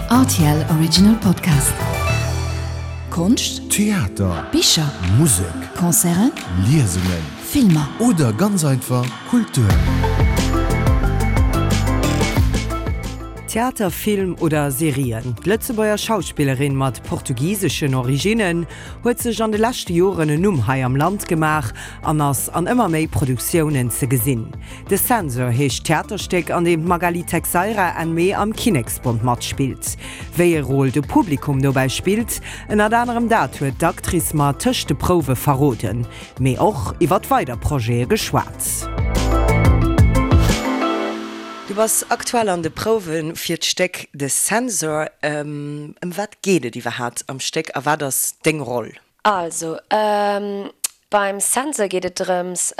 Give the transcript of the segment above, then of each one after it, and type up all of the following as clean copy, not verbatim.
Rtl Original Podcast. Konscht, Theater, Bicher, Musek, Concerten, Liesungen Filmer. oder ganz einfach Kultur. Theater, Film oder Serien, d'Lëtzebuerger Schauspillerin mat portugiseschen Originnen huet sech an de leschte Joren en Numm hei am Land gemaach an ass an ëmmer méi Produktiounen ze gesinn. De Censor heescht d'Theaterstéck, an deem d'Magali Texeira Enn Mee am Kinneksbond matspillt. Wéi e Rôle de Publikum dobäi spillt, ënnert anerem dat huet d'Actrice mer tëscht de Prouwe verroden, mee och iwwert weider Projete geschwat. Du bass aktuell an de Prouwe fir d'Stéck De Censor. Ëm wat geet et iwwerhaapt am Stéck a wat ass deng Roll? Also, beim Censor geet et drëms,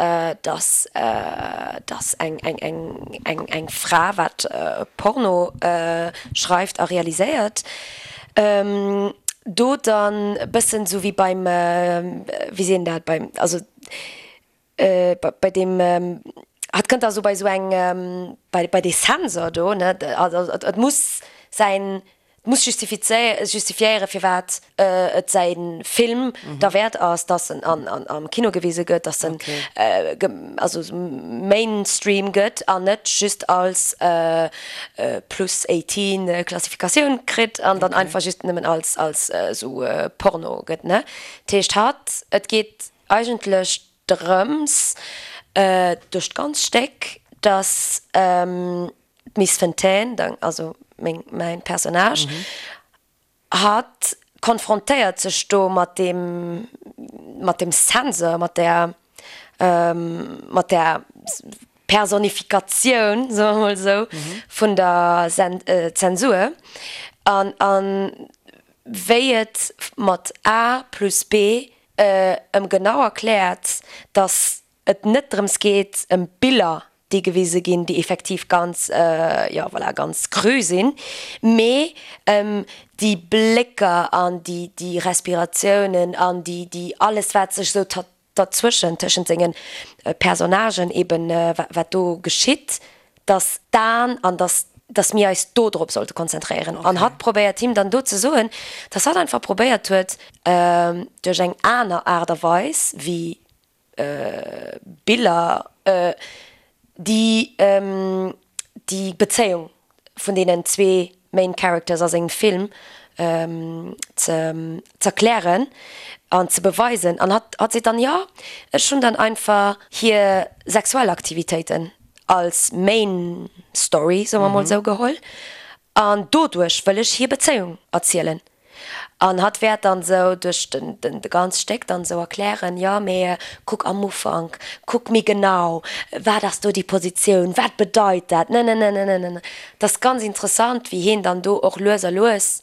dass, dass eng, eng, eng, eng, eng Fra, wat Porno schreift a realiséiert, do dann e bëssen esou wéi beim, wéi seet een dat, beim, also bei deem, hatt kënnt da esou bei esou eng, bei, bei dee Censor do, ne, also et muss säin muss justifiéieren, firwat et säi Film derwäert ass, dass en am Kino gewise gëtt, dass en also Mainstream gëtt an net just als plus 18 Klassifikatioun kritt an dann einfach just nëmmen als als esou Porno gëtt, ne. Dat heescht hatt, et geet eigentlech drëms duerch d'ganz Stéck, dass D'Miss Fontaine, also meng, mäin Personnage, hatt konfrontéiert sech do mat deem, mat dem Censor, mat där, mat där Personifikatioun, soe mer mol esou, vun der Zensur an, an wéi et mat A plus B ëm genau erkläert, dass et net drëms geet ëm Biller, déi gewise ginn, déi effektiv ganz, jo voilà, ganz cru sinn, mee ëm déi Blécker an déi, déi Respiratiounen an déi, déi alles wat sech esou derzwëschen, tëschent senge Personnagen eben, wat do geschitt, dass d'Aen an dass, dass mir eis do drop sollte konzentréieren. An hatt probéiert him dann do ze soen, dass hatt einfach probéiert huet, duerch eng aner Aart a Weis wéi Biller, déi déi Bezéiung vun deenen zwee Main Characters a sengem Film ze z'erklären an ze beweisen. An hatt hatt seet dann, jo, ech hunn dann einfach hir sexuell Aktivitéiten als Main Story, soe mer mol esou, geholl an doduerch wëll ech hir Bezéiung erzielen. An hatt wäert dann esou duerch den, den, de ganz Stéck dann esou erklären, jo, mee kuck am Ufank, kuck méi genau, wat ass do déi Positioun, wat bedeit dat, nenenenenenen. Et ass ganz interessant, wéi hien dann do och lues a lues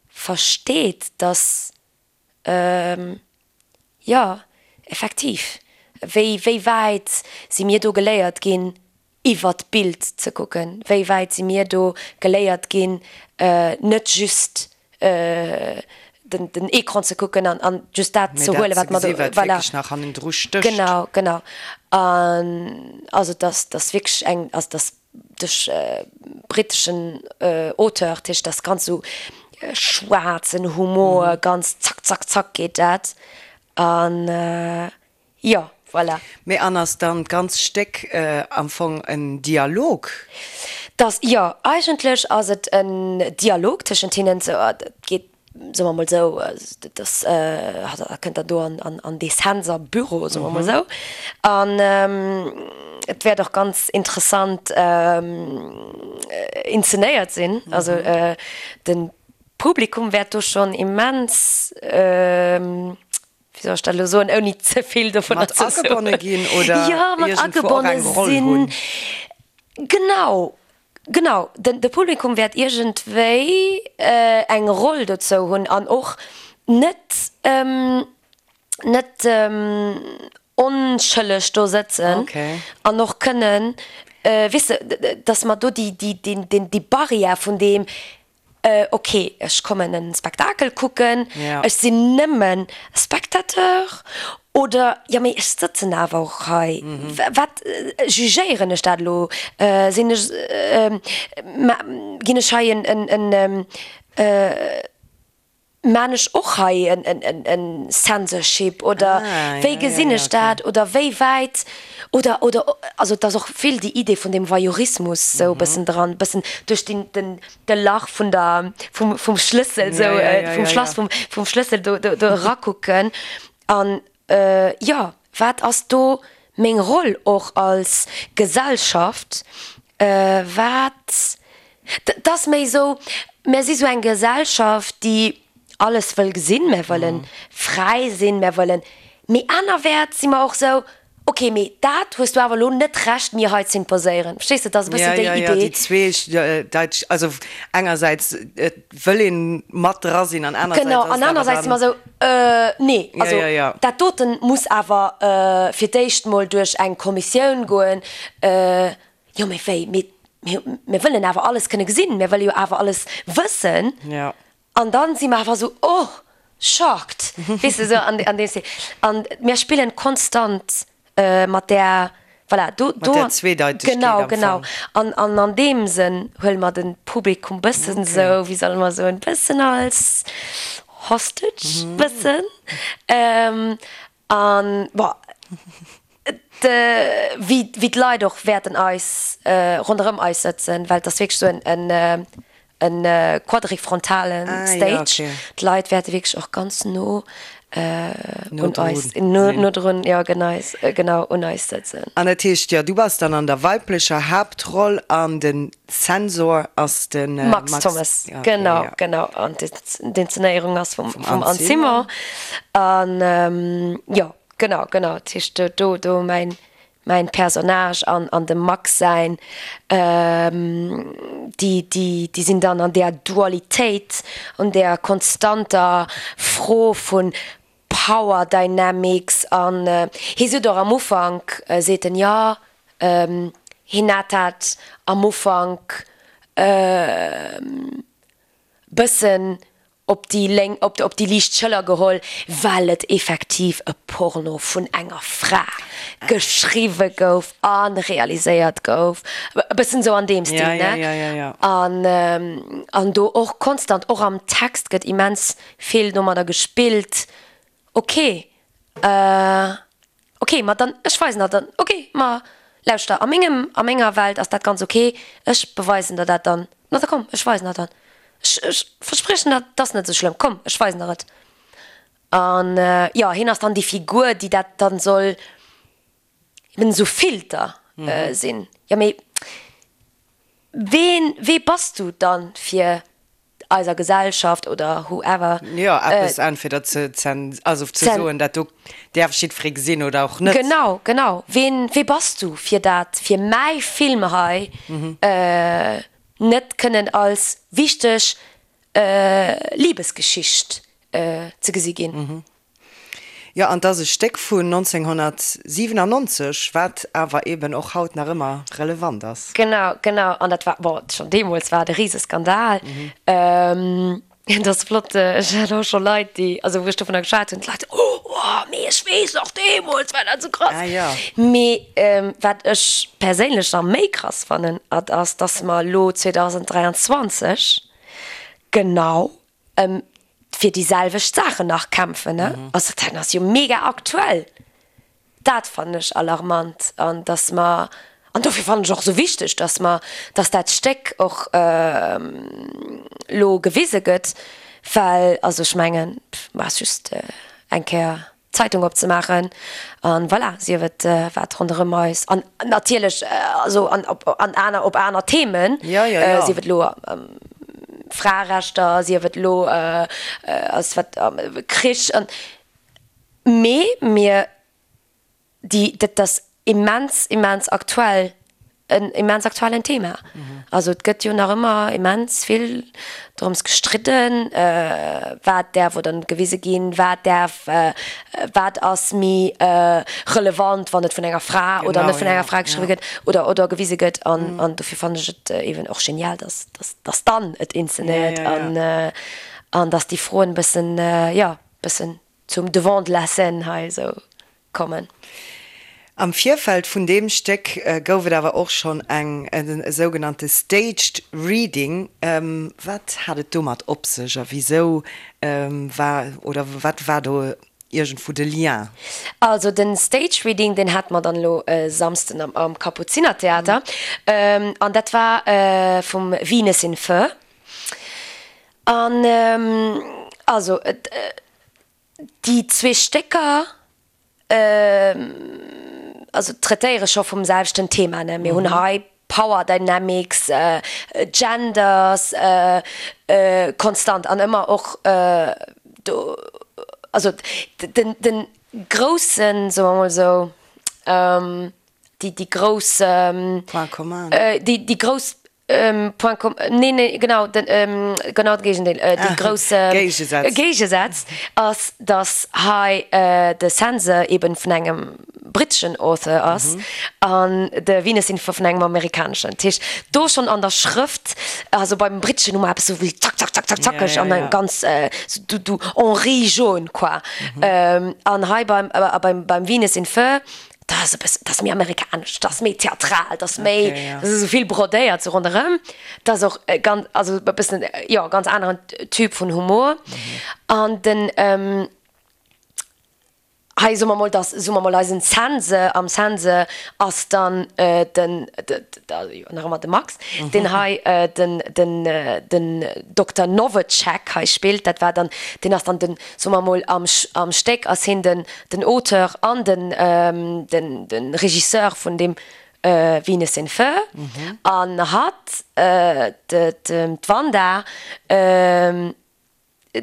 versteet, dass, jo, effektiv, wéi, wéi wäit si mir do geléiert ginn, iwwert d'Bild ze kucken, wéi wäit si mir do geléiert ginn, net just den den Ecran ze kucken an an just dat ze huelen, wat mer do, voilà. Genau, genau. An also dass dass wierklech eng, also dass duerch britteschen Auteur, dat heescht, dass ganz esou schwaarzen Humor, ganz zack, zack, zack geet dat. An Jo, voilà. Mee an ass dann d'ganz Stéck am Fong en Dialog? Dass, jo, eigentlech ass et en Dialog tëschent hinnen. Sou, et geet, soe mer mol esou, dass hatt kënnt dann do an dee Censor-Büro, soe mer mol esou. An et wäert och ganz interessant inzenéiert sinn. Also de Publikum wäert do schonn immens, wéi soll ech dat elo soen, ouni ze vill dovunner ze soen? Mat agebonne ginn oder Jo, mat iergendwou och agebonne eng Roll sinn. hunn. Genau, genau. Den, de Publikum wäert iergendwéi eng Roll dozou hunn an och net, net onschëlleg do sëtzen Okay. an och kënnen, weess de, dass mer do déi, déi, deen, deen, déi Barrière vun deem, Ok, ech kommen en Spektakel kucken, ech sinn nëmmen Spectateur oder jo mee ech sëtzen awer och hei, wat jugéieren ech dat elo, sinn ech, ginn ech hei en. Maan ech och hei en Censorship oder wéi gesinn ech dat oder wéi wäit oder oder also et ass och vill déi Idee vun dem Voyeurismus sou e bëssen dran, bëssen duerch den den de Lach vun der vum vum Schlëssel sou vum Schlass vum vum Schlëssel do do do erakucken an jo wat ass do meng Roll och als Gesellschaft wat 't ass méi esou, mär si sou eng Gesellschaft, déi alles wëll gesinn, mär wëlle fräi sinn, mär wëllen, mee anerwäerts si mer och esou, ok, mee dat hues du awer elo net Recht mir hei z'imposéieren. Verstees de, 't ass e bëssen déi Idee. Jo, jo, déi zwee, also engersäits wëll een mat dra sinn an anersäits Genau, an anersäits si mer esou, nee, also dat doten muss awer fir d'éischt mol duerch eng Kommissioun goen. Jo, mee wéi? Mee mir wëllen awer alles kënne gesinn, mir wëlle jo awer alles wëssen. Ja. An dann si mer awer esou, oh, shocked, weess de, esou an an deem Stil. An mir spillen konstant mat där, voilà, do, do. Mat där Zweedeitegkeet am Fong. Genau, genau. An an an deem Sënn huele mer de Publikum bëssen esou, wéi solle mer soen, bëssen als Hostage, bëssen. An, bon, wéi d'Leit och wäerten eis ronderëm eis sëtzen, well et ass wierklech esou en quadrifrontale Stage. D'Leit wäerte wierklech och ganz no un eis, no drun, jo genau, un eis sëtzen. An dat heescht, jo, du bass dann an der weiblecher Haaptroll an den Zensor ass de Max Thommes. Genau, genau. An d'Inszenéierung ass vum Anne Simon. An jo, genau, genau. Dat heescht do, do mäin, mäin Personnage an, an dem Max säin, déi, déi, déi sinn dann an där Dualitéit, an där konstanter Fro vun Power Dynamics an hie sot och am Ufank, seet en, jo, hien hat dat am Ufank bëssen op déi lénk, op déi liicht Schëller geholl, well et effektiv e Porno vun enger Fra geschriwwe gouf a realiséiert gouf, e bëssen esou an deem Stil, ne? An, an do och konstant, och am Text gëtt immens vill domadder gespillt, ok, ok, ma dann, ech weisen der dann, ok, ma lauschter, a mengem, a menger Welt ass dat ganz ok, ech beweisen der dat dann, ma da komm, ech weisen der dann, ech, ech verspriechen der, 't ass net esou schlëmm, komm, ech weisen der et. An jo, hien ass dann déi Figur, déi dat dann soll eben esou Filter sinn. Jo, mee ween, wee bass du dann fir eiser Gesellschaft oder whoever. Jo, eppes entweder ze zen, also ze soen, dat do däerf jiddweree gesinn oder och net. Genau, genau. Ween, wee bass du fir dat, fir mäi Film hei net kënnen als wichteg Libesgeschicht ze gesi ginn? Jo, an 't ass e Stéck vun 1997, wat awer eben och haut nach ëmmer relevant ass. Genau, genau. An dat war, bon, schonn deemools war et e Riseskandal. Et ass flott, ech hat och scho Leit, déi, also wou ech dovunner geschwat hunn, d'Leit, Oh, oh, mee ech weess nach, deemools war dat esou krass. Ah jo. Mee wat ech perséinlech nach méi krass fannen, at ass, dass mer elo 2023 genau ëm fir déi selwecht Saachen nach kämpfen, ne? Also dat ass jo mega aktuell. Dat fannen ech alarmant an dass mer, an dofir fannen ech och esou wichteg, dass mer, dass dat Stéck och elo gewise gëtt, well also ech mengen, ma ass just eng Kéier d'Zeitung opzemaachen an voilà, sief et wat ronderëm eis an natierlech also an op an aner op aner Themen, sief et elo Fraerechter, sief et elo ass wat Krich an mee mir Déi, dat ass immens, immens aktuell, en immens aktuellen Thema. Also et gëtt jo nach ëmmer immens vill drëms gestridden, wat däerf oder net gewise ginn, wat däerf, wat ass méi relevant, wann et vun enger Fra oder net vun enger Fra geschriwwe gëtt oder oder gewise gëtt. An, an dofir fannen ech et eeben och genial, dass, dass, dass dann et inzenéiert an, an dass déi Froen e bëssen, jo, bëssen zum Devant de la scène hei esou kommen. Am Virfeld vun deem Stéck gouf et awer och schonn eng e sougenannte Staged Reading. Wat hat et domat op sech a wisou war oder wat war do iergendwou de Lien? Also den Staged Reading, deen hate mer dann elo e Samsden am Kapuzinertheater an dat war vum Venus in Fur. An also déi zwee Stécker also traitéiere scho vum selwechten Thema, ne? Mir hunn hei Power Dynamics, Genders, konstant an ëmmer och do, also den, den groussen, soe mer mol esou, déi, déi grouss, Point commun. déi, déi grouss Point com, nee, nee, genau, den, genau de Géigendeel, déi grouss Géigesaz. Géigesaz ass, datt hei de Censor eben vun engem britteschen Author ass an de Venus in Fur vun engem amerikaneschen. Dat heescht, do schonn an der Schrëft, also beim britteschen hu mer eppes esou wéi zack, zack, zack, zack, zackeg an eng ganz, du, du Henri jaune, quoi. An hei beim, beim Venus in Fur, Dat ass e bëssen, dat ass méi amerikanesch, dat ass méi theatral, dat ass méi, Okay, ja. dat ass esou vill brodéiert sou ronderëm. Dat ass och e ganz, also e bëssen, jo, ganz aneren Typ vun Humor. An den, hei soe mer mol, dass, soe mer mol, eisen Zense, am Zense ass dann den, jo, nach ëmmer de Max, deen hei den, den, den Dokter Novacek hei spillt. Dat war dann, deen ass dann den, soe mer mol, am, am Stéck ass hien den, den Auteur an den den Regisseur vun deem Venus in Fur an hatt d'Wanda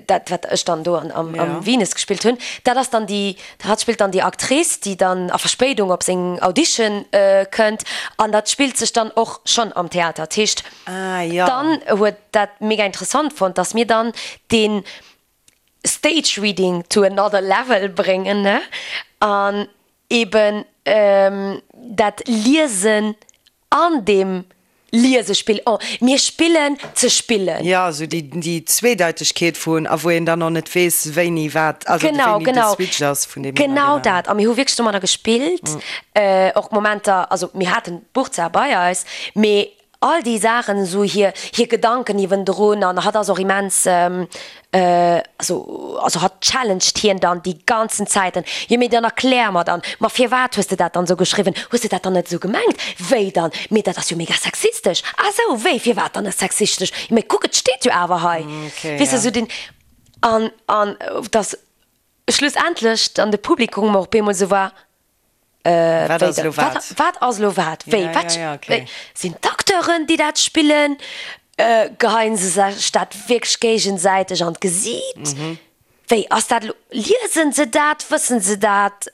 dat wat ech dann do am Venus gespillt hunn, dat ass dann déi, hatt spillt dann déi Actrice déi dann a Verspéidung op seng Audition kënnt an dat spillt sech dann och schonn am Theater. Dat heescht dann huet dat mega interessant fonnt, datt mir dann deen Stage Reading to another level bréngen, ne? An eben dat Liesen an deem Liesespill, oh, mir spillen ze spillen. Jo, esou déi, déi Zweedeitegkeet vun, a wou een dann och net weess, wéini wat, also Genau, wéini de genau. Switch ass vun deem een Genau an deen dat. A mir hu wierklech domadder gespillt, och Momenter, also mir haten d'Buch zwar bei eis, mee All déi Saachen, esou hir, hir Gedanken iwwendrun an hatt ass och immens, also, also hatt challenged hien dann déi ganzen Zäiten, jo mee dann erklär mer dann, ma firwat hues de dat dann esou geschriwwen, hues de dat dann net esou gemengt, wéi dann, mee dat ass jo mega sexistesch, ah sou, wéi, firwat dann sexistesch, jo mee kuck et steet jo awer hei, weess de, esou den, an, an dass schlussendlech dann de Publikum och op eemol esou war, Wat ass elo wat? Wat ass elo wat? Wéi? Wat? Okay. Sinn d'Acteuren, déi dat spillen? Geheien se sech dat wierklech géigesäiteg an d'Gesiit? Wéi ass dat elo? Liesen se dat? Wëssen se dat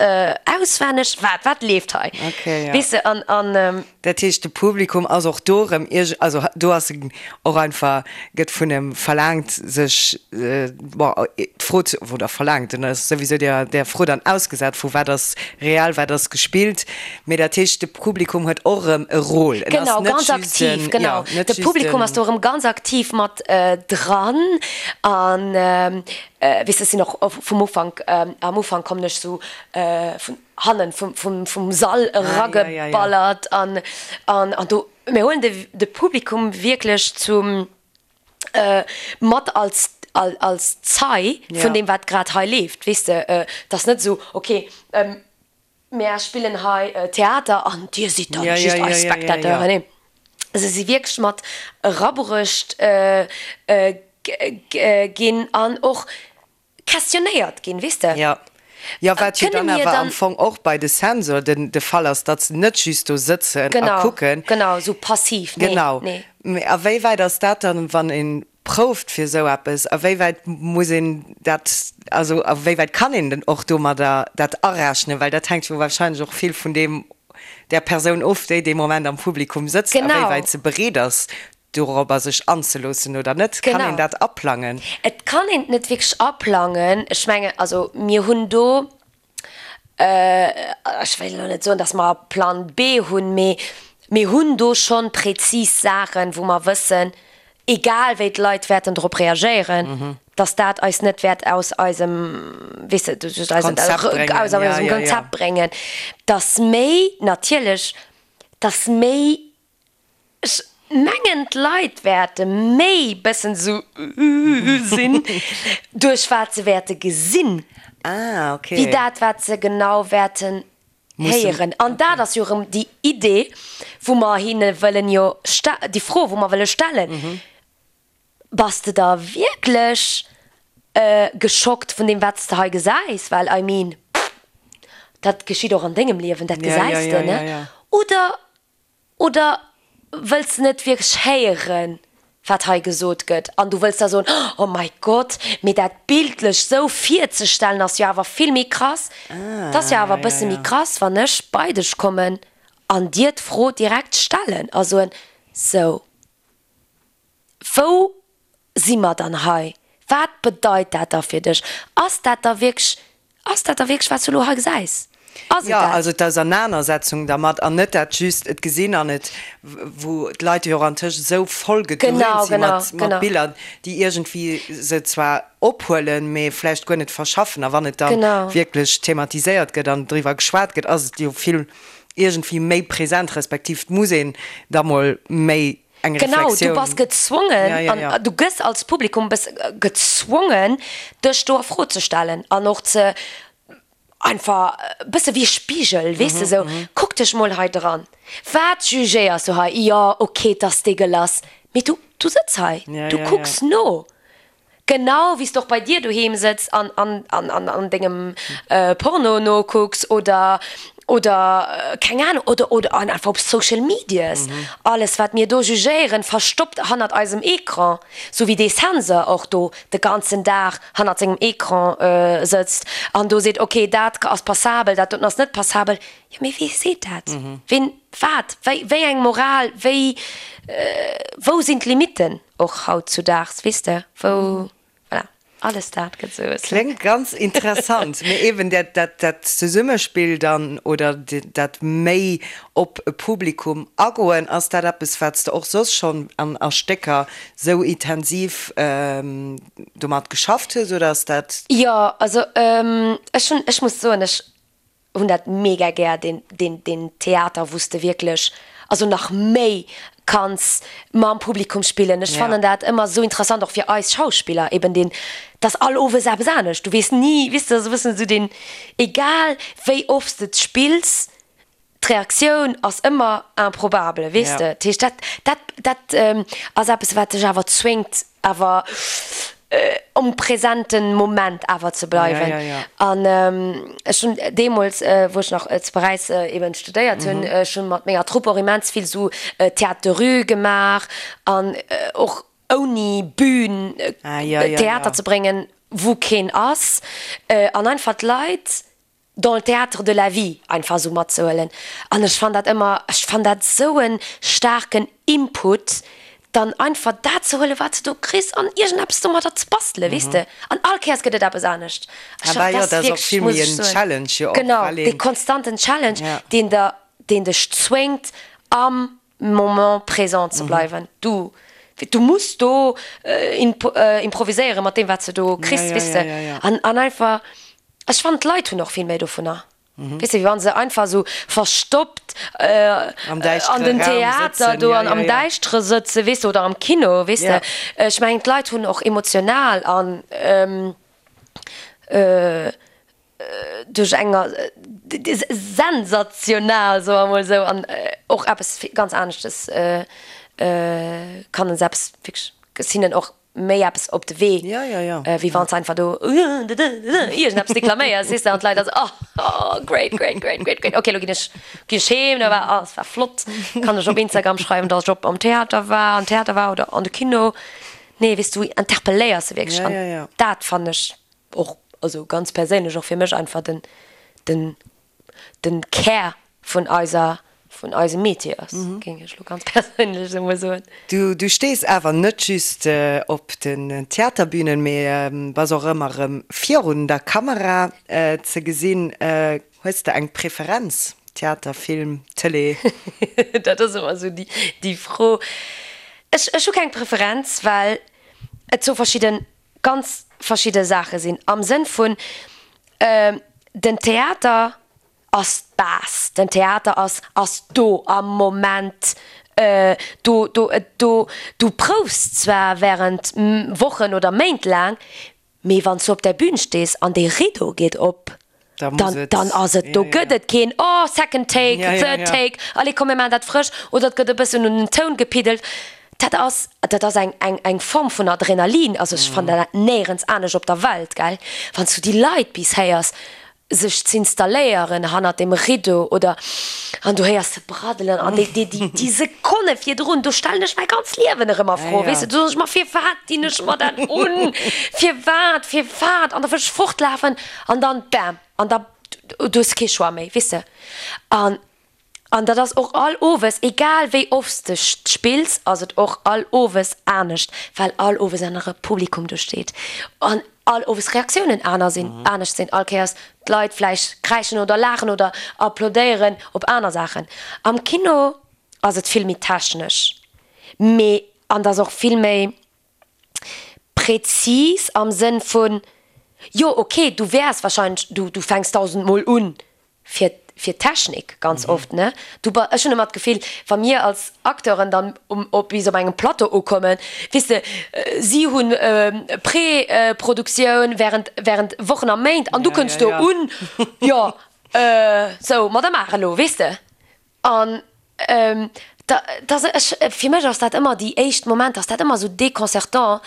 auswenneg? Wat? Wat leeft hei? Okay, ja. Weess de, an, an. Dat heescht, de Publikum ass och do erëm ierg-, also do ass en och einfach, gëtt vun em verlaangt, sech, bon, d'Fro ze, oder verlaangt, en ass souwisou där, där Fro dann ausgesat vu wat ass real, wat ass gespillt, mee dat heescht, de Publikum huet och erëm e Rôle, en ass Genau, net ganz just aktiv, en, genau. jo, net De just Publikum ass en. do erëm ganz aktiv mat dran an, weess de, ech sinn och vum Ufank, am Ufank kommen ech sou vun hannen vum vum Sall erageballert an an an do mir huelen de de Publikum wierklech zum mat als als Zei vun deem wat grad hei leeft, weess de. Et ass net esou, ok mär spillen hei Theater an dir sidd dann just eis Spectateuren. Nee, se si wierklech mat erabruecht ginn an och questionnéiert ginn, weess de. Jo, jo, wat jo Kënne dann mir awer am dann. Fong och bei de Sensor den de Fall ass, datt se net just do sëtzen a Genau, kucken. genau, esou passiv, nee, Genau. nee. Mee a wéi wäit ass dat dann, wann ee prouft fir esou eppes, a wéi wäit muss een dat, also a wéi wäit kann een denn och domadder dat arechnen, well dat hänkt jo wahrscheinlech och vill vun deem, där Persoun of, déi dee Moment am Publikum sëtzt, a wéi Genau. wäit se bereet ass, dorobber sech anzeloossen oder net? Kann een dat aplangen? Et kann een et net wierklech aplangen. Ech mengen, also mir hunn do, ech wéilt elo net soen, datt mer e Plan B hunn, mee mir hunn do schonn präzis Saachen, wou mer wëssen, egal wéi d'Leit wäerten drop reagéieren, dass dat eis net wäert aus eisem, weess de, aus eisem Konzept bréngen, aus ja, eisem ja, ja. Konzept bréngen, dass méi natierlech, dass méi, ech mengen d'Leit wäerte méi bëssen esou sinn duerch wat se wäerte gesinn, Ah, okay. wéi dat wat se genau wäerten héieren. An dat ass jo erëm déi Idee, wou mer hinne wëllen jo, déi Fro, wou mer wëlle stellen, Bass de da wierklech geschockt vun deem, wat s de hei gesäis? Well, I mean, dat geschitt och an dengem Liewen, dat gesäis de, ne? Oder, oder wëlls de net wierklech héieren, wat hei gesot gëtt an du wëlls da soen, oh mäi Gott, mee dat bildlech sou virzestellen ass jo awer vill méi krass. Et ass jo awer e bësse méi krass, wann ech bei dech kommen an dir d'Fro direkt stellen a soen, sou, wou si mer dann hei? Wat bedeit dat da fir dech? Ass dat da wierklech, ass dat da wierklech, wat s du elo hei gesäis? Ass et Jo, dat? also d'Ausernanersetzung dermat an net dat just et gesinn an et, wou d'Leit jo och antëscht esou voll gedröhnt Genau, si genau, mat, mat genau. Biller, déi iergendwéi se zwar ophuelen, mee vläicht guer net verschaffen. A wann et dann Genau. wierklech thematiséiert gëtt an driwwer geschwat gëtt, ass et jo vill iergendwéi méi present, respektiv et muss een da mol méi eng Genau, du Reflexioun. bass gezwongen Ja, ja, an ja. du gëss als Publikum bëss gezwongen, dech do a Fro ze stellen an och ze einfach e bësse wéi e Spigel, weess de, sou, kuck dech mol hei dran, wat jugéiers du hei? Jo, ok, 't ass dégueulasse, mee du, du sëtz hei, Ja, du ja, ja. kucks no. Genau wéi s de och bei dir doheem sëtz an an an an dengem Porno nokucks oder oder keng Ahnung oder oder an einfach op Social Medias. Alles wat mir do jugéieren, verstoppt hannert eisem Ecran, sou wéi dee Sensor och do de ganzen Dag hannert sengem Ecran sëtzt an do seet, ok dat ass passabel, dat doten ass net passabel. Jo mee wee seet dat? Ween, wat, wéi wéi eng Moral, wéi wou sinn d'Limitten? Och haut zu daags, weess de, wou, voilà, alles dat gëtt esou e bëssen. Kléngt ganz interessant. Mee eben dat, dat, dat Zesummespill dann oder dat méi op e Publikum agoen, ass dat eppes, wat s de och soss schonn an a Stécker sou intensiv domat geschafft hues oder ass dat. Jo, also ech hunn, ech muss soen, ech hunn dat mega gär, deen, deen, deen Theater, wou s de wierklech, also nach méi kanns mam Publikum spillen. Ech fannen dat ëmmer esou interessant, och fir eis Schauspiller eben deen, dass all Owes eppes anescht, du weess ni, weess de, esou e bëssen esou deen, egal wéi oft s de et spills, D'Reaktioun ass ëmmer improbable, weess de. Dat heescht, dat, dat, dat ass eppes, wat dech awer zwéngt, awer um presenten Moment awer ze bleiwen. An ech hunn deemools, wou ech nach zu Paräis eben studéiert hunn, ech hu mat menger Trupp och immens vill esou Théâtre de rue gemaach an och ouni Bühn Theater ze bréngen, wou keen ass, an einfach d'Leit dans le théâtre de la vie einfach esou matzehuelen an ech fann dat ëmmer, ech fann dat esou e staarken Input, dann einfach dat ze huelen, wat s de do kriss an iergendeppes domadder ze bastelen, weess de. An all Kéiers gëtt et eppes anescht. Ech Ah bah jo, dat dat ass och wierklech, vill muss méi ech en soen, Challenge jo och, genau, well dee een, konstanten Challenge, ja. deen der, deen dech zwéngt am Moment présent ze bleiwen. Du, du muss do improviséieren mat deem, wat s de do kriss, Ja, ja, weess ja, de. ja, ja. An, an einfach, Ech fannen d'Leit hunn och vill méi dovunner, weess de, wéi wann se einfach esou verstoppt Am an däischtere den Raum Theater sëtzen, do ja, an ja, am ja. Däischtere sëtzen, weess de, oder am Kino, weess de. Ja. Ech mengen d'Leit hunn och emotional an duerch enger sensational, soe mer emol esou, an och eppes ganz aneschtes kann en se eppes wierklech hinnen och méi eppes op de Wee, Ja, ja, ja. wéi wann s de einfach do iergendeppes deklaméiers, weess de, an d'Leit da sou, oh, oh, great, great, great, great, great, okay, lo ginn ech, ginn ech heem, da war, oh, es war flott, kann ech op Instagram schreiwen, dass ech op am Theater war, am Theater war oder an de Kino. Nee, weess du, interpelléiers se wierklech Ja, an ja, ja. dat fannen ech och, also ganz perséinlech och fir mech einfach den, den den Kär vun eiser, vun eisem Métier ass, géing ech elo ganz perséinlech esou mol soen. Du, du stees awer net just op den Theaterbünen, mee bass och ëmmer erëm virun der Kamera ze gesinn. Hues de eng Preferenz, Theater, Film, Tëlee? Dat ass ëmmer esou déi, déi Fro. Ech, ech hu keng Preferenz, well et zwou verschidden, ganz verschidde Saache sinn. Am Sënn vun, den Theater ass d'Base, den Theater ass, ass do am Moment, do, do, do, du proufs zwar während Wochen oder Méint laang, Mee wann s du op der Bühn stees an dee Rideau geet op, dann, dann ass et, do gëtt et keen oh second take, third take, allez komm mir maachen dat frësch oder et gëtt e bëssen un den Toun gepiddelt. Dat ass, dat ass eng, eng, eng Form vun Adrenalin, also ech fannen dat néierens anescht op der Welt, gell, wann s du déi Leit bis héiers sech z'installéieren hannert dem Rideau oder an du héiers se braddelen an déi, déi, déi, déi Sekonne virdrun, do stellen ech mäi ganz Liewen erëm a Fro, weess de, do soen ech mer, firwat dinn ech mer dat un, firwat, firwat an da wëll ech fortlafen an dann bam an da du hues kee Choix méi, weess de. An An dat ass och all Owes, egal wéi oft s de spills, ass et och all Owes anescht, well all Owes anere Publikum do steet an all Owes Reaktiounen aner sinn, anescht sinn, all Kéiers d'Leit vläicht kräischen oder laachen oder applaudéieren op aner Saachen. Am Kino ass et vill méi technesch, mee an et ass och vill méi prezis am Sënn vun, jo ok, du wäers wahrscheinlech, du du fänks dausendmol un fir fir d'Technik ganz oft, ne? Du ba, ech hunn ëmmer d'Gefill, wa mir als Acteuren dann um op bis op engem Plateau ukommen, weess de, si hunn Preproduktioun während während Wochen a Méint an du kënns do un, jo, sou, ma da maach elo, weess de. An da, da, ech, fir mech ass dat ëmmer, déi éischt Momenter ass dat ëmmer esou déconcertant,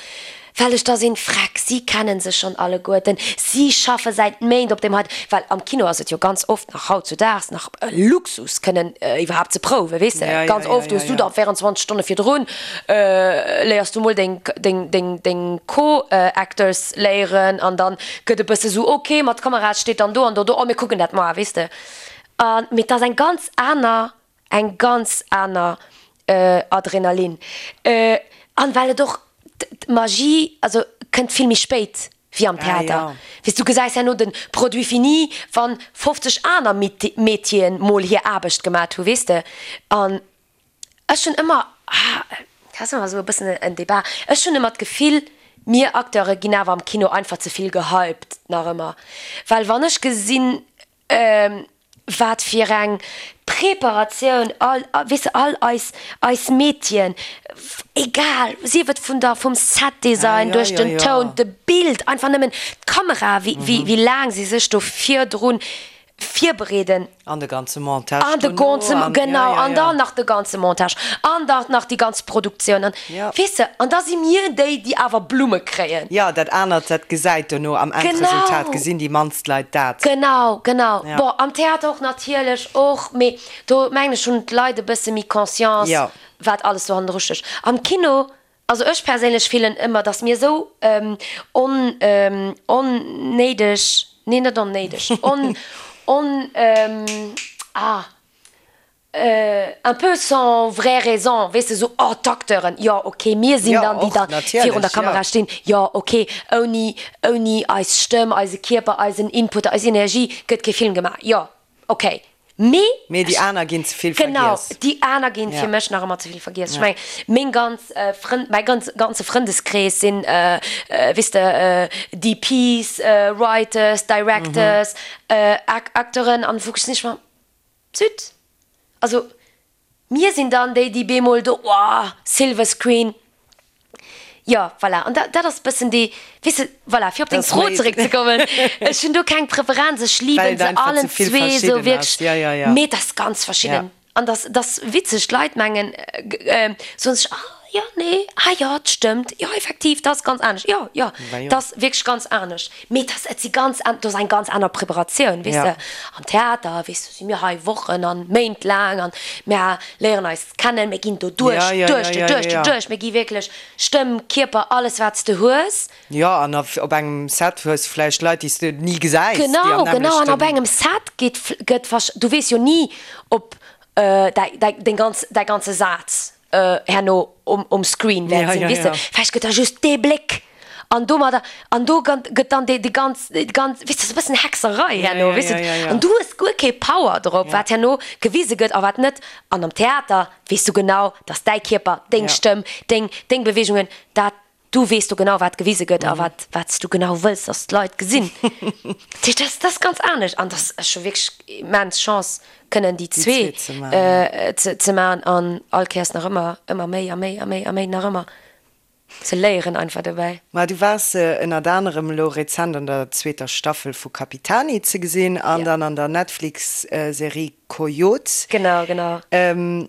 well ech da sinn, Freck, si kennen sech schonn alleguerten, si schaffe säit Méint op deem heiten, well am Kino ass et jo ganz oft nach hautzudaags nach e Luxus kënnen iwwerhaapt ze prouwen, weess de. Ganz oft hues du da 24 Stonne virdrun léiers du mol deng, deng, deng, deng Co-Actors léieren an dann gëtt e bësse sou, ok, ma d'Kamera steet dann do an do, do, oh mir kucken dat moar, weess de. An, mee et ass eng ganz aner, eng ganz aner Adrenalin. An well et och d'Magie, also kënnt vill méi spéit wéi am Theater. Weess, du gesäis herno de Produit fini, wann 50 aner Métieren mol hir Aarbecht gemat hu, weess de. An ech hunn ëmmer, ah, dat ass ëmmer esou e bëssen en Débat, ech hunn ëmmer d'Gefill, mir Acteure ginn awer am Kino einfach ze vill gehypt nach ëmmer. Well wann ech gesinn, Wat fir eng Preparatioun all, weess de, all eis, eis Métieren, egal, sief et vun der, vum Setdesign, duerch den Toun, de Bild, einfach nëmmen d'Kamera, wéi, wéi, wéi laang si sech do virdrun virbereeden. An de ganze Montage An de ganze, genau, an dann nach de ganze Montage an dann nach déi ganz Produktioun an, weess de, an da si mir déi, déi awer Blumme kréien. Jo, dat anert, dat gesäit dono am Endresultat, gesinn déi mannst Leit dat. Genau, genau. Bon, am Theater och natierlech och, mee do mengen ech hunn d'Leit e bësse méi Conscience, wat alles do hannendru stécht. Am Kino, also ech perséinlech fillen ëmmer, datt mir esou on, onnéideg, nee net onnéideg, on, on, ah, un peu sans vraie raison, weess de, esou, oh d'Acteuren, jo ok, mir sinn dann déi da virun der Kamera stinn, jo ok, ouni, ouni eis Stëmm, eise Kierper, eisen Input, eis Energie gëtt kee Film gemaach, jo ok, mee. Mee déi aner ginn ze vill vergiess. Genau, déi aner ginn fir mech nach ëmmer ze vill vergiess. Ech mengen, meng ganz Frënn, mäi ganz, ganze Frëndeskrees sinn, weess de, DPs, Writers, Directors, Acteuren an wou ech sinn ech mer, Zut! Also mir sinn dann déi, déi bemol do, oh, Silver Screen. Jo, voilà. An dat ass e bëssen déi, weess de, voilà, fir op deng Fro zeréckzekommen, ech hunn do keng Preferenz, ech liben se allen zwee esou wierklech, mee et ass ganz verschidden. An dat ass witzeg, d'Leit mengen, soen sech, ah jo, nee, ah jo, et stëmmt, jo, effektiv, dat ass ganz anescht, jo, jo, dat ass wierklech ganz anescht. Mee et ass, et si ganz an, do ass eng ganz aner Preparatioun, weess de. Am Theater, weess de, si mir hei Wochen an Méint laang an mir léieren eis kennen, mir ginn do duerch, duerch, duerch, duerch, mir gi wierklech Stëmm, Kierper, alles wat s de hues. Jo, an op engem Set hues de vläicht Leit, déi s de ni gesäis, déi am Genau, genau, an op engem Set geet, gëtt, du weess jo ni, ob däi, däi, deng ganz, däi ganze Saz herno um, um Screen wäert sinn, weess de. Vläicht gëtt da just dee Bléck. An domadder, an do gëtt dann déi ganz, déi ganz, weess de, sou e bëssen Hexerei herno, weess de, an du hues guer kee Power drop, wat herno gewise gëtt a wat net. An am Theater weess du genau, dass däi Kierper, deng Stëmm, deng, deng Beweegungen, dat, du weess do genau, wat gewise gëtt a wat, wat s du genau wëlls, dass d'Leit gesinn. Dat heescht, dat ass ganz anescht an dat ass scho wierklech immens Chance, kënnen déi zwee ze maachen an all Kéiers nach ëmmer, ëmmer méi a méi a méi a méi nach ëmmer. Ze léieren einfach dobäi. Ma du waars ënnert anerem elo rezent an der zweeter Staffel vu Capitani ze gesinn an dann an der Netflix-Serie Coyote. Genau, genau.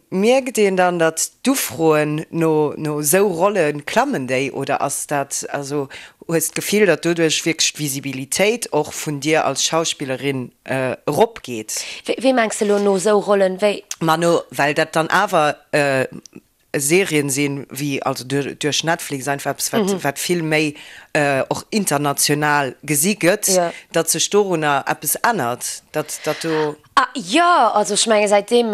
Mierkt een dann, datt d'Ufroen no no esou Rolle klammen déi oder ass dat, also hues d'Gefill, datt doduerch wierklech d'Visibilitéit och vun dir als Schauspillerin eropgeet? Wéi mengs de elo no esou Rollen? Wéi? Ma no, well dat dann awer Serien sinn, wéi also duerch Netflix einfach eppes wat wat vill méi och international gesi gëtt, datt sech dorunner eppes ännert, datt datt do. Ah jo, also ech menge säitdeem,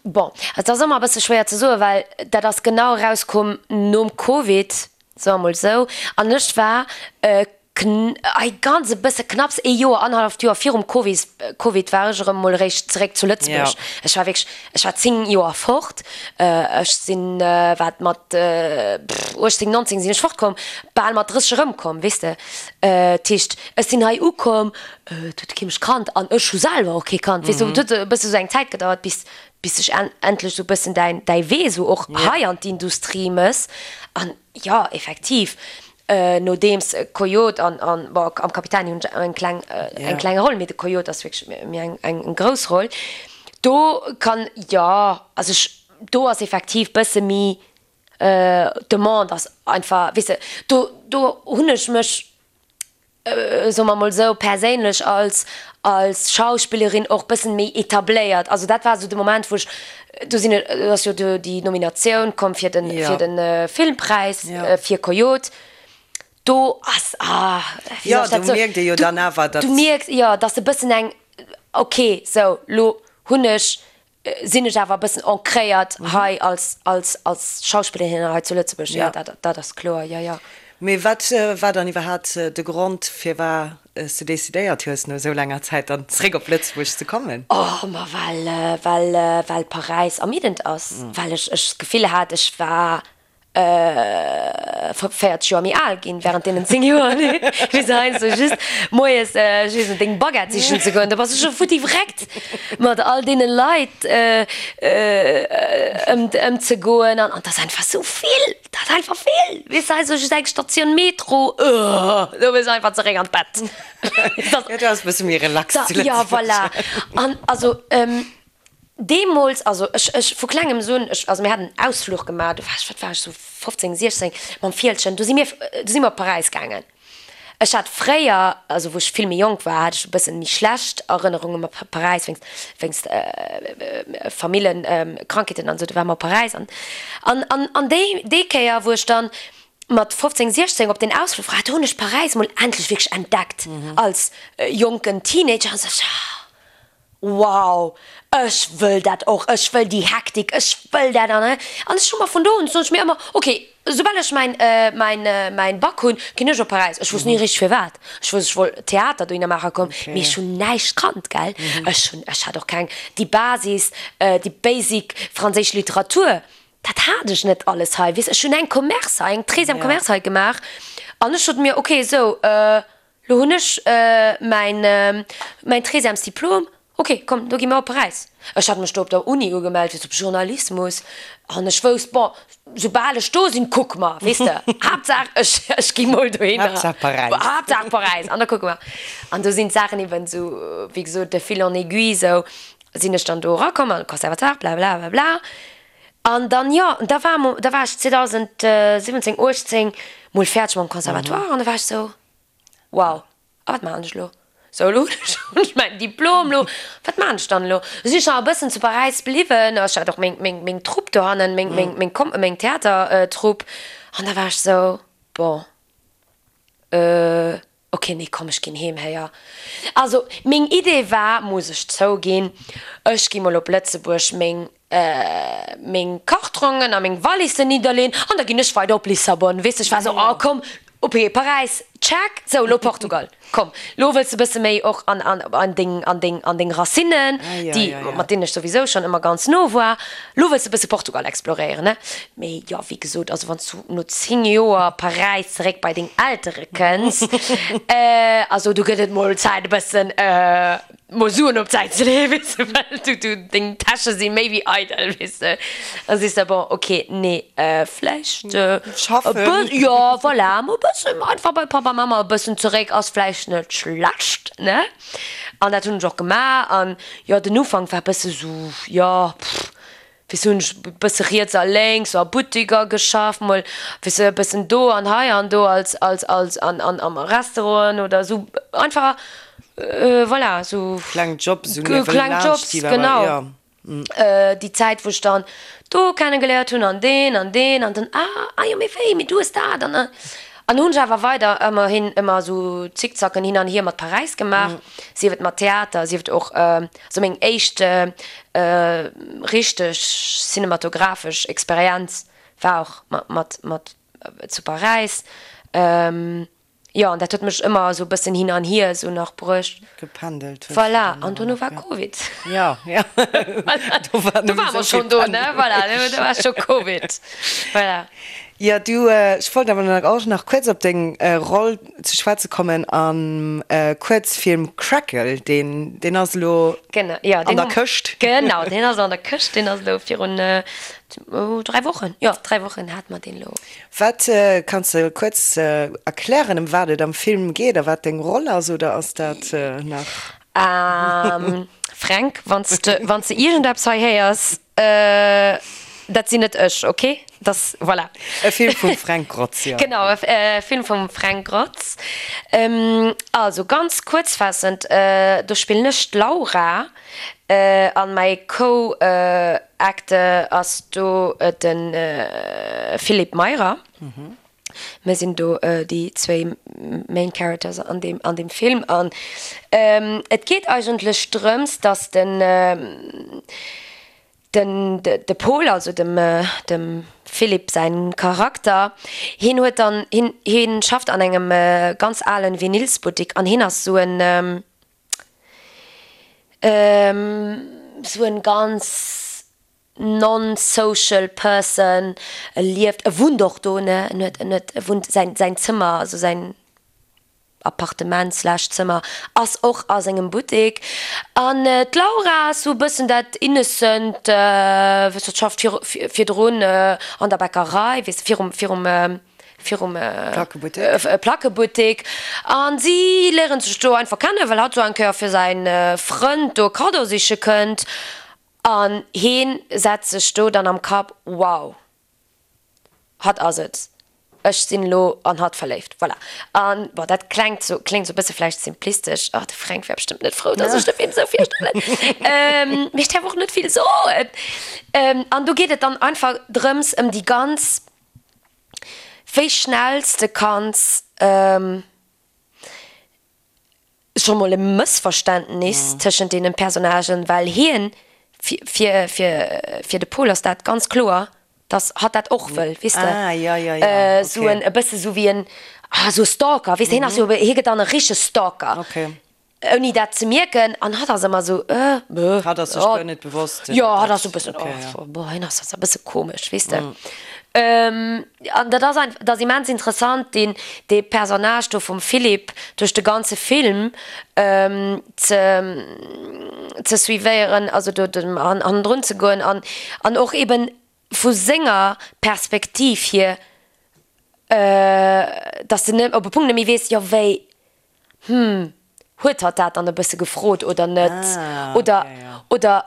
bon, et ass ëmmer e bësse schwéier ze soen, well dat ass genau erauskomm nom Covid, soe mer mol esou, an ech war Kn, ei ganz e bësse knapps ee Joer, annerhalleft Joer virum Covid, Covid war ech erëm mol eréischt zeréck zu Lëtzebuerg. Ech war wierklech, ech war 10 Joer fort. Ech sinn, wat mat 18, 19 sinn ech fortkomm, bal mat 30 erëmkomm, weess de. Dat heescht, ech sinn hei ukomm, et huet kee mech kannt an ech hu selwer och kee kannt, weess de. Et huet e bësse sou eng Zäit gedauert, bis, bis sech endlech sou e bëssen däin, däi Wee sou och hei an d'Industrie mëss. An jo, effektiv, Nodeems Coyote an, an, bon, am Capitani hunn ech eng kleng, eng kleng Roll, mee de Coyote ass wierklech méi eng, eng grouss Roll. Do kann, jo, also ech, do ass effektiv bësse méi, d'Demande ass einfach, weess de, do, do hunn ech mech, soe mer mol esou, perséinlech als, als Schauspillerin och bëssen méi etabléiert. Also dat war esou de Moment, wou ech, do sinn, do ass jo do déi Nominatioun komm fir den, fir den Filmpräis fir Coyote. Do ass, ah, wéi soll ech dat soen? Jo, do mierkt ee jo dann awer, datt. Du mierks, jo, datt e bëssen eng, okay, sou, lo hunn ech sinn ech awer e bëssen ancréiert hei als, als, als Schauspillerin hei zu Lëtzebuerg. Jo, dat, dat ass kloer, jo, jo. Mee wat war dann iwwerhaapt de Grond, firwat s de decidéiert hues, no esou laanger Zäit dann zeréck op Lëtzebuerg ze kommen? Oh, ma well, well, well Paräis ermiddend ass, well ech, ech d'Gefill hat, ech war 40 Joer méi al ginn während deenen 10 Joer, wéi se heiansdo just moies, ech weess net, deng Baguette sichen ze goen, da bass du scho futti vreckt mat all deene Leit ëmzegoen an et ass einfach sou vill, et ass einfach vill, weess de, heiansdo just eng Statioun Metro, do wëlls du einfach zeréck an d'Bett. Jo, do ass e bësse méi relax zu Lëtzebuerg. Jo, voilà. An also. Deemools, also ech, ech vu klengems un, ech, also mir haten en Ausfluch gemaach, do war ech, wat war ech, sou 15, 16, mam Fieldgen, do si mir, do si mir op Paräis gaangen. Ech hat fréier, also wou ech vill méi jonk war, hat ech e bëssen méi schlecht Erënnerunge mat Paräis, wéinst, wéinst Famillen-Krankheeten an esou, do ware mer op Paräis an, an, an, an déi, déi Kéier, wou ech dann mat 15, 16 op deen Ausfluch war, do hunn ech Paräis mol endlech wierklech entdeckt als jonken Teenager an sou, ah, Wow, ech wëll dat och, ech wëll déi Hektik, ech wëll dat an an ech hu mer vun do un soen ech mir ëmmer, ok, soubal ech mäin mäin mäin Bac hunn, ginn ech op Paräis. Ech wousst ni richteg firwat, ech wousst ech wollt Theater dohinner maache komm, mee ech hunn näischt kannt, gell, ech hunn ech hat och keng déi Basis, déi basic franséisch Literatur, dat hat ech net alles hei, weess, ech hunn eng Commerce hei, eng treizième Commerce hei gemaach an ech sot mir, ok, sou. Lo hunn ech mäin mäin treizièmes Diplom. Ok, komm, do gi mer op Paräis. Ech hat mech do op der Uni ugemellt fir op Journalismus an ech wousst, bon, soubal ech do sinn, kucke mer, weess de. Haaptsaach ech ech gi mol dohinner. Haaptsaach Paräis. Haaptsaach Paräis an da kucke mer. An do sinn d'Saachen eben esou, wéi gesot, de fil en aiguille, esou sinn ech dann do erakomm an de Conservatoire, blabla blabla. An dann, jo, da war mo da war ech 2017, 18 mol fäerdeg mam Conservatoire an da war ech esou, Wow, a wat maachen ech elo? Sou, elo hunn ech mäin Diplom, elo, wat maachen ech dann elo? Du sinn ech nach e bëssen zu Paräis bliwwen, ech hat och meng, meng, meng Trupp dohannen, meng, meng, meng Kom, meng Theatertrupp. An da war ech sou, bon, euh, ok, nee, komm, ech ginn heem, héier. Also, meng Idee war, muss ech zouginn, ech gi mol op Lëtzebuerg meng. Meng Kartrongen a meng Wallissen nidderleen an da ginn ech weider op Lissabon. Weess de, ech war esou, oh komm, ok, Paräis, check, sou elo Portugal, komm, lo wëlls de bësse méi och an, an, an deng, an deng, an deng Racinen, déi, mat deenen ech souwisou schonn ëmmer ganz no war, lo wëlls de bësse Portugal exploréieren, ne? Mee jo, wéi gesot, also wann s du no 10 Joer Paräis zeréck bei deng Eltere kënns, also do gëtt et mol Zäit e bëssen, Mol Suen op d'Säit ze leeën, weess de, well du, du, deng Täsche si méi wéi eidel, weess de. Da sees de, bon, ok, nee, vläicht e Schaffen. bë, jo, voilà, mol e bëssen einfach bei Papa, Mama e bëssen zeréck ass vläicht net schlecht, ne? An dat hunn ech och gemaach an, jo, den Ufank war e bësse sou, jo, pff, Weess hunn ech e bësse riets a lénks a Buttiker geschafft, mol weess e bëssen do an hei an do als als als an an am Restauranten oder esou einfach voilà esou Kleng Jobs esou niewelaanscht kleng Jobs déi awer genau jo. Déi Zäit wou ech dann do kenne geléiert hunn an deen an deen an dann ah ah jo mee wéi mee du hues dat an an hunn ech awer weider ëmmerhin ëmmer esou Zickzacken hin an hier mat Paräis gemaach, sief et mat Theater, sief et och Also meng éischt richteg cinematographesch Experienz war och mat mat zu Paräis. Jo, an dat huet mech ëmmer esou e bëssen hin an hier esou nach bruecht. Gependelt hues du Voilà, dann an awer dono nach, war ja. Covid. Ja, ja. Voilà, Do war do nëmme ware esou mer vill schonn do, ne? Pendelen. Voilà, do war scho Covid. Voilà. Jo, du, ech wollt awer nach och nach kuerz op deng Roll ze schwätze kommen am Kuerzfilm Crackle, deen, deen ass elo Genau, jo, an deen der hu, Këscht. genau, deen ass an der Këscht, deen ass elo virun 3 Wochen, jo, 3 Wochen hate mer deen elo. Wat, kanns de kuerz erklären, ëm wat et am Film geet a wat deng Roll ass, oder ass dat nach? Fränk, wann s de, wann s de iergendeppes hei héiers, Dat sinn net ech, ok? Dass, voilà. E Film vum Fränk Grotz, jo. Genau, e Film vum Fränk Grotz. Also, ganz kuerzfaassend, do spillen ech d'Laura an mäi Co-Acteur ass do de Philippe Meyrer. Mir sinn do déi zwéi Main Characters an deem, an deem Film. An et geet eigentlech drëms, dass den, den, de Paul, also dem, dem Philippe säin Charakter, hien huet dann, hien, hien schafft an engem ganz alen Vinylsbuttik an hien ass sou en, sou en ganz non-social person, e lieft, e wunnt och do, ne, en huet, en huet, e wunnt, säin, säin Zëmmer, also säin Appartement slash Zëmmer ass och a sengem Buttek. An d'Laura ass sou e bëssen dat innocent, weess de, schafft vir, virdrun an der Bäckerei, weess de, virum, virum, virum Plackebuttek. Plackebuttek. An si léieren sech do einfach kennen, well hatt sou eng Kéier fir säin Frënd do e Kaddo siche kënnt. An heen setzt sech do dann am Kapp, wow, hatt ass et, ech sinn elo an hatt verléift. Voilà. An bon, dat klengt sou, kléngt sou e bësse vläicht simplistesch, oh, de Fränk wär bestëmmt net frou, dass ech de Film sou virstellen, mee ech däerf och net vill soen. An do geet et dann einfach drëms, ëm déi ganz, wéi schnell s de kanns, scho mol e Mëssverständnis tëschent deenen Personnagen, well hien, fir, fir, fir de Paul ass dat ganz kloer, dass hatt dat och wëll, weess de, Ah, ja, ja, ja, esou en, okay. e bësse sou wéi en, ah, esou e Stalker, weess de, hien ass jo, hie gëtt dann e richtege Stalker, Okay. ouni dat ze mierken, an hatt ass ëmmer esou, äh, bäh, Hatt ass sech oh, guer net bewosst, jo, datt hatt ass dat, esou e bëssen, okay, ja. oh, boah, hien ass e bësse komesch, weess de. An dat ass einfach, dat ass immens interessant, deen, dee Personnage do vum Philippe duerch de ganze Film ze, ze suivéieren, also do dem hannendrun ze goen an, an och eben vu senger Perspektiv hier, dass de op e Punkt net méi weess, jo wéi, hm, huet hatt dat dann e bësse gefrot oder net, oder, oder,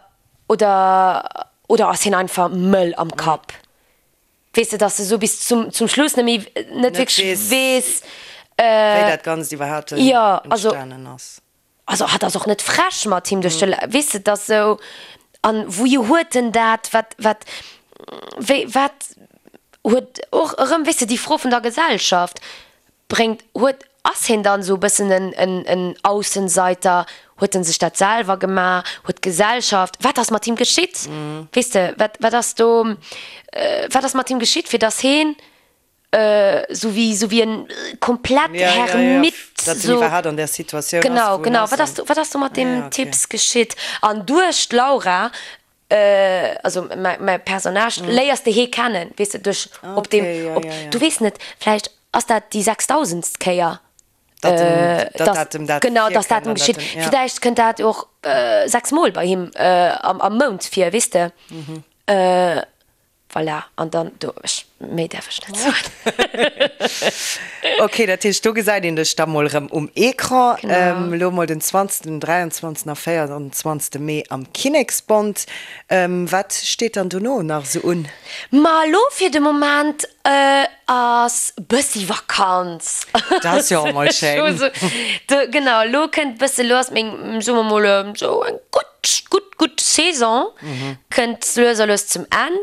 oder, oder ass hien einfach mëll am Kapp? Weess de, dass de sou bis zum, zum Schluss net méi, net wierklech weess, wéi dat Ganzt iwwerhaapt entstanen ass. Also hatt ass och net frech mat him duerch de, weess de, dass sou, an wouhier huet en dat, wat, wat, wéi, wat huet och erëm, weess de, déi Fro vun der Gesellschaft bréngt, huet. Ass hien dann esou e bëssen en, en, en Aussenseiter? Huet en sech dat selwer gemaach? Huet d'Gesellschaft, wat ass mat him geschitt? Weess de, wat, wat ass do, wat ass mat him geschitt, fir dass heen esou wéi, esou wéi en komplett Hermit, Datt en iwwerhaapt an där Situatioun ass, wou en ass. Genau, genau. Wat ass do, wat ass do mat deem Typs geschitt? An duerch d'Laura, also mäi Personnage, léiers de hee kennen, weess de, duerch op deem, op, du weess net, vläicht ass dat déi sechstausendst Kéier, datt em dat genau, datt dat em geschitt. Vläicht kënnt dat och 6 Mol bei him am Mount vir, weess de. Voilà, an dann do, ech, méi däerf ech net soen. Ok, dat heescht, do gesäit een dech da mol erëm um Ecran. Genau. Elo mol den 20., den 23. a 24. Mee am Kinneksbond. Wat steet dann dono nach esou un? Ma elo fir de Moment ass bëssi Vakanz. Dat ass jo och mol schéin. Genau, elo kënnt bësse, elo ass meng, soe mer mol, esou eng gutt Gutt, gutt Saison kënnt lues a lues zum Enn.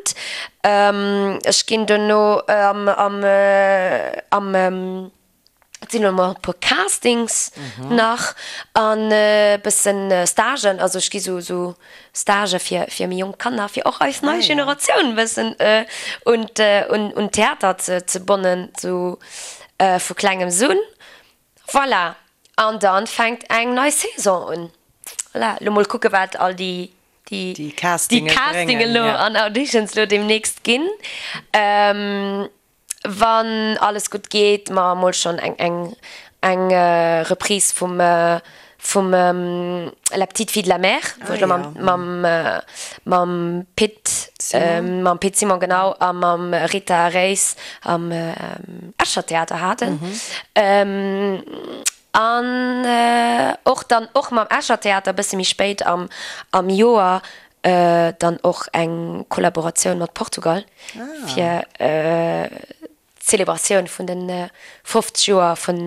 Ech ginn dono am, am, am, et sinn elo mol e puer Castings nach an e bëssen Stagen. Also ech gi sou, sou Stagë fir, fir méi jonk Kanner, fir och eis nei Generatioun e bëssen un un, un Theater ze, ze bonnen, sou vu klengems un. Voilà, an dann fänkt eng nei Saison un. Voilà, lo mol kucke wat all déi déi Castingen Castingen lo an Auditions lo demnächst ginn. Wann alles gutt geet, ma mol schonn eng eng eng Reprise vum vum La petite fille de la mer, wou ech lo mam mam mam Pit mam Pit Simon genau a mam Rita Reis am Escher Theater haten. An och dann och mam Escher Theater e bësse méi spéit am am Joer dann och eng Kollaboratioun mat Portugal fir d'Celebratioun vun de 50 Joer vun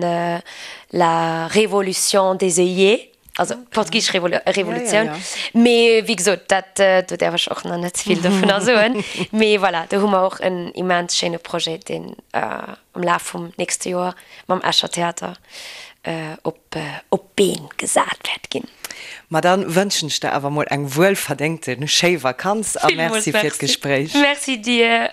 la Révolution des œillets, also d'portugisesch Revolutioun. Mee wéi gesot, dat, do däerf ech och nach net ze vill dovunner soen. Mee voilà, do hu mer och en immens schéine Projet, deen am Laf vum nächste Joer mam Escher Theater op d'Been gesat wäert ginn. Ma dann wënschen ech der awer mol eng wuelverdéngte schéi Vakanz a Merci fir d'Gespréich. Merci dir.